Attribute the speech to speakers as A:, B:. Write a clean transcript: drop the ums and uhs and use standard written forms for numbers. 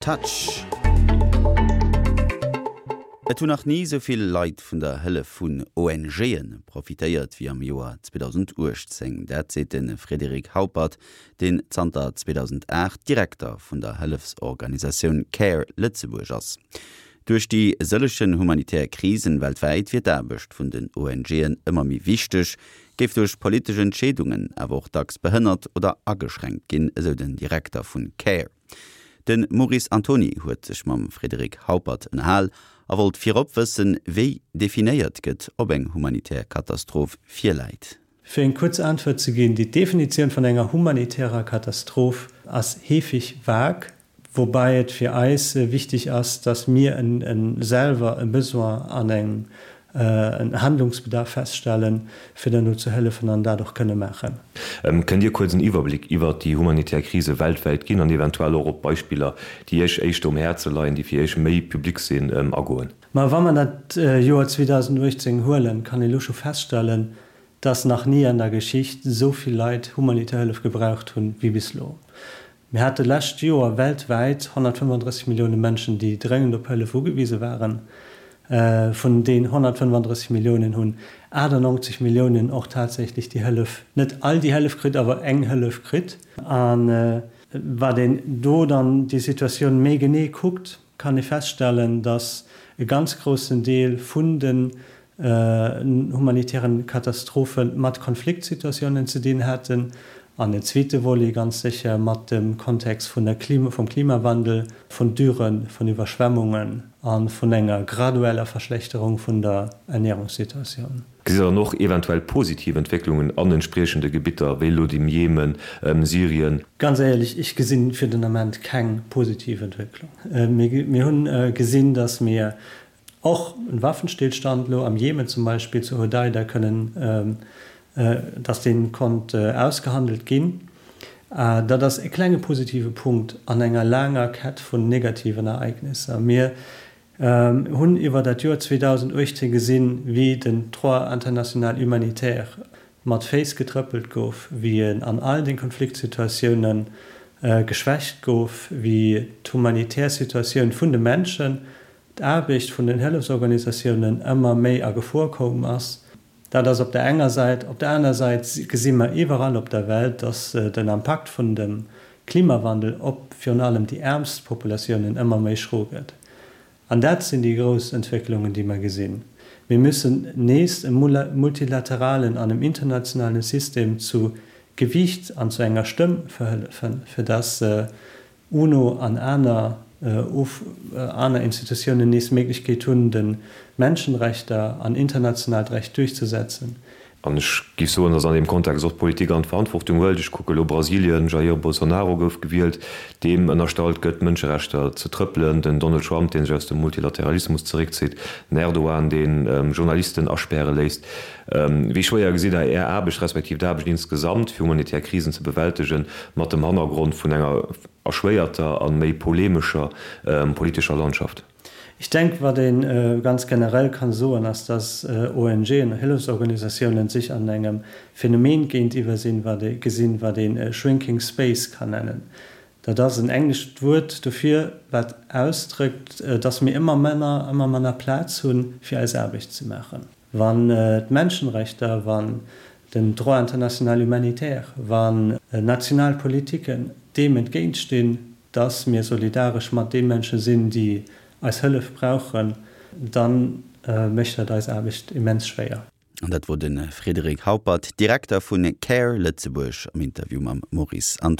A: Touch. Et hunn nach ni esou vill Leit vun der Hëllef vun ONGe profitéiert wéi am Joer 2018. Dat seet de Frédéric Haupert, deen zanter 2008 Direkter vun der Hëllefsorganisatioun Care Lëtzebuerg ass. Duerch déi sëllegen humanitär Krisen weltwäit wier d'Aarbecht vun den ONGen ëmmer méi wichteg, géif duerch politesch Entscheedungen awer och dacks behënnert oder ageschränkt ginn, esou den Direkter vun Care. De Maurice Antoni huet sech mam Frédéric Haupert ënnerhal a wollt virop wëssen, wéi definéiert gëtt, ob eng humanitär Katastroph virläit.
B: Fir eng kuerz Äntwert ze ginn, Déi Definitioun vun enger humanitärer Katastroph ass heefig vag, woubäi et fir eis wichtig ass, dass mir selwer e Besoin an eng en Handlungsbedarf feststellen, fir dann do ze hëllefen an dat och kënne maachen.
C: Kënnt Dir kuerz en Iwwerbléck iwwert déi humanitär Krise weltwäit ginn an eventuell och op Beispiller, déi Iech éischter um Häerze leien, déi fir Iech méi public sinn, agoen?
B: Ma wa mer dat Joer 2018 huelen, kann ee lo scho feststellen, dass nach ni an der Geschicht esou vill Leit humanitär Hëllef gebraucht hunn, wéi bis lo. Mir hate lescht Joer weltwäit 135 Millioune Mënschen, déi dréngend op Hëllef ugewise waren. Vun deen 135 Milliounen hunn 98 Milliounen och tatsächlech déi Hëllef, net all déi Hëllef kritt, awer eng Hëllef kritt. A wat een do dann déi Situatioun méi genee kuckt, kann ee feststellen, datt e ganz groussen Deel vun den humanitären Katastrophe mat Konfliktsituatiounen ze dinn haten an en zweete Volet ganz sécher mat dem Kontext vun der Klima, vum Klimawandel, vun Dürren, vun Iwwerschwemmungen a vun enger gradueller Verschlechterung vun der Ernährungssituatioun.
C: Gesitt Der dann och eventuell positiv Entwécklungen an entspriechende Gebitter, wéi elo dem Jemen, Syrien?
B: Ganz éierlech, ech gesinn fir den Ament keng positiv Entwécklung. Mir hunn gesinn, datt mir Och en Waffenstillstand elo am Jemen zum Beispill, zu Hodeida, kënnen, dass dee konnt ausgehandelt ginn, dat ass e klenge positive Punkt an enger laanger Kett vun negativen Ereignisser. Mir hunn iwwer dat Joer 2018 gesinn, wéi den Droit international humanitaire mat Féiss getrëppelt gouf, wéi en an all de Konfliktsituatioune geschwächt gouf, wéi d'humanitär Situatioun vun de Menschen d'Aarbecht vun den Hëllefsorganisatiounen ëmmer méi a Gefor koum ass. Dat ass op der enger Säit. Op der aner Säit gesi mer iwwerall op der Welt, dass den Impakt vun dem Klimawandel op virun allem déi äermst Populatiounen ëmmer méi schro gëtt. An dat sinn déi grouss Entwécklungen, déi mer gesinn. Mir müssen nees em multilateralen an em internationalen System zu Gewiicht an zu enger Stëmm verhëllefen, fir dass UNO an aner aner Institutiounen nees d'Méiglechkeet hunn, de Menschenrechter an internationaalt Recht duerchzesetzen.
C: An ech géif soen, datt an deem Kontext och d'Politik an d'Verantwortung huelt. Ech kucke elo Brasilien, Jair Bolsonaro gouf gewielt, deem ënnerstallt gëtt, d'Mënscherechter ze trëppelen, den Donald Trump, dee sech aus dem Multilateralismus zeréckzitt, den Erdogan, dee Journalisten aspäre léisst. Wéi schwéier gesitt Der Är Aarbecht, respektiv d'Aarbecht insgesamt, fir humanitär Krisen ze bewältegen, mat dem Hannergrond vun enger erschwéierter a méi polemescher politescher Landschaft?
B: Ech denken, wat ee ganz generell kann soen, ass, dass ONGen, Hëllefsorganisatiounen, sech an engem Phänomen géintiwwer sinn, wat ee gesinn, wat een shrinking space kann nennen. Dat ass en englescht Wuert dofir, wat ausdrëckt, dass mir ëmmer manner, ëmmer manner Plaz hunn, fir eis Aarbecht ze maachen. Wann d'Menschenrechter, wann den Droit international humanitaire, wann national Politiken deem entgéintstinn, dass mir solidaresch mat de Mënsche sinn, déi eis Hëllef brauchen, da mécht dat eis Aarbecht immens schwéier.
A: An dat wor de Frédéric Haupert, Direkter vu Care Lëtzebuerg am Interview mam Maurice Antony.